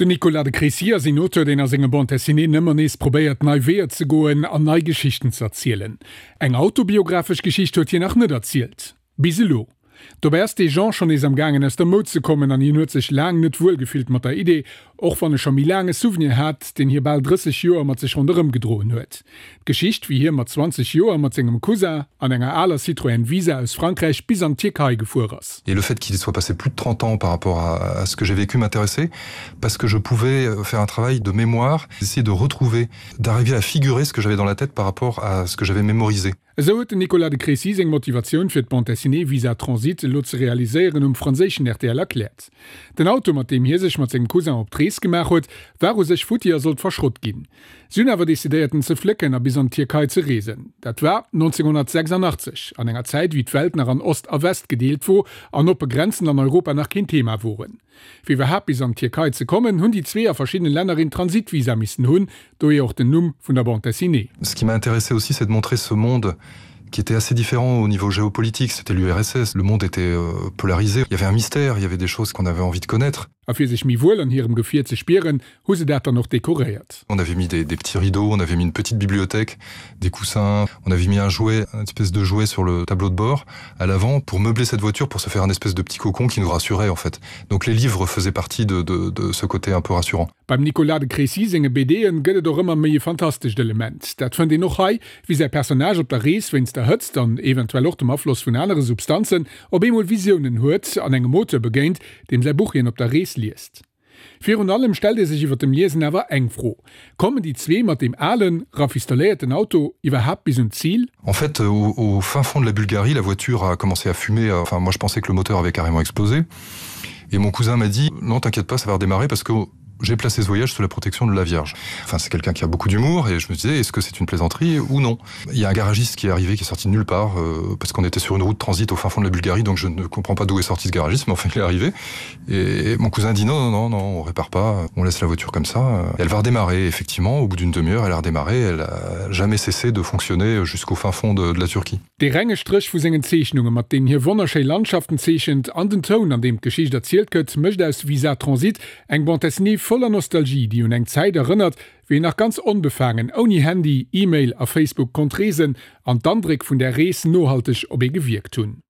Den Nicolas de Crécy ass een Auteur, deen a senge Bande dessinéeën ëmmer nees probéiert, nei Weeër ze goen an nei Geschichten ze erzielen. Eng autobiographesch Geschicht huet hien nach net erzielt. Bis elo. Dobäi ass dee Genre schonn nees am gaangen aus der Moud ze kommen an hien huet sech laang net wuel gefillt mat der Idee, och wann e scho méi laang e Souvenir hat, deen hie bal 30 Joer mat sech ronderëm gedroen huet. D'Geschicht, wéi hie mat 20 Joer mat sengem Cousin an enger aler Citroën Visa aus Frankräich bis an d'Tierkei gefuer ass. Et le fait qu'il soit passé plus de 30 ans par rapport à ce que j'ai vécu m'intéressait parce que je pouvais faire un travail de mémoire, essayer de retrouver, d'arriver à figurer ce que j'avais dans la tête par rapport à ce que j'avais mémorisé. Esou huet den Nicolas de Crécy seng Motivatioun fir d'Bande dessinée Visa Transit elo ze realiséieren um franséischen rtl erkläert. Den Auto, mat deem hie sech mat sengem Cousin op d'Rees gemaach huet, war u sech futti a sollt verschrott ginn. Si hunn awer decidéiert en ze flécken a bis an d'Tierkei ze reesen. Dat war 1986, an enger Zäit wéi d'Welt nach an Ost a West gedeelt wor an oppe Grenzen an Europa nach keen Thema woren. Fir iwwerhaapt bis an d'Tierkei ze kommen, hunn déi zwee a verschiddene Länner een Transitvisa missen hunn, dohier och den Numm vun der Bande dessinée. Ce qui m'a intéressé aussi, c'est de montrer ce monde qui était assez différent au niveau géopolitique, c'était l'URSS, le monde était polarisé, il y avait un mystère, il y avait des choses qu'on avait envie de connaître. A fir sech méi wuel an hirem Gefier ze spieren, hu se dat dann och dekoréiert. On avait mis des, des petits rideaux, on avait mis une petite bibliothèque, des coussins, on avait mis un jouet, une espèce de jouet sur le tableau de bord à l'avant pour meubler cette voiture pour se faire un espèce de petit cocon qui nous rassurait en fait. Donc les livres faisaient partie de, de, de ce côté un peu rassurant. Beim Nicolas de Crécy senge BDen gëtt et och ëmmer méi e fantastescht Element. Dat fënnt een och hei, wéi säi Personnage op der Rees wéinst der Hëtzt an eventuell och dem Afloss vun anere Substanzen op eemol Visiounen huet an engem Auteur begéint, deem säi Buch hien op der Rees liest. Virun allem stellt ee sech iwwer dem Liesen awer eng Fro, Kommen déi zwee mat deem alen, rafistoléierten Auto iwwerhaapt bis un d'Zil? En fait, au, au fin fond de la Bulgarie, la voiture a commencé à fumer. Enfin, moi je pensais que le moteur avait carrément explosé. Et mon cousin m'a dit: "Non, t'inquiète pas, ça va redémarrer parce que j'ai placé ce voyage sous la protection de la Vierge. Enfin, c'est quelqu'un qui a beaucoup d'humour et je me disais: "Est-ce que c'est une plaisanterie ou non?" Il y a un garagiste qui est arrivé, qui est sorti de nulle part euh, parce qu'on était sur une route transit au fin fond de la Bulgarie, donc je ne comprends pas d'où est sorti ce garagiste, mais enfin il est arrivé. Et mon cousin dit: "Non, non, non, non, on répare pas, on laisse la voiture comme ça." Elle va redémarrer effectivement au bout d'une demi-heure, elle a redémarré, elle a jamais cessé de fonctionner jusqu'au fin fond de, de la Turquie. Dee renge Stréch vu sengen Zeechnunge, mat deenen hie wonnerschéi Landschaften zeechent, an den Toun, an deem d'Geschicht erzielt gëtt, mécht aus Visa Transit eng Bande dessinée voller Nostalgie, déi un eng Zäit erënnert, wéi een nach ganz onbefaangen, ouni Handy, E-Mail a Facebook konnt reesen an d'Andréck vun där Rees nohalteg op ee gewierkt hunn.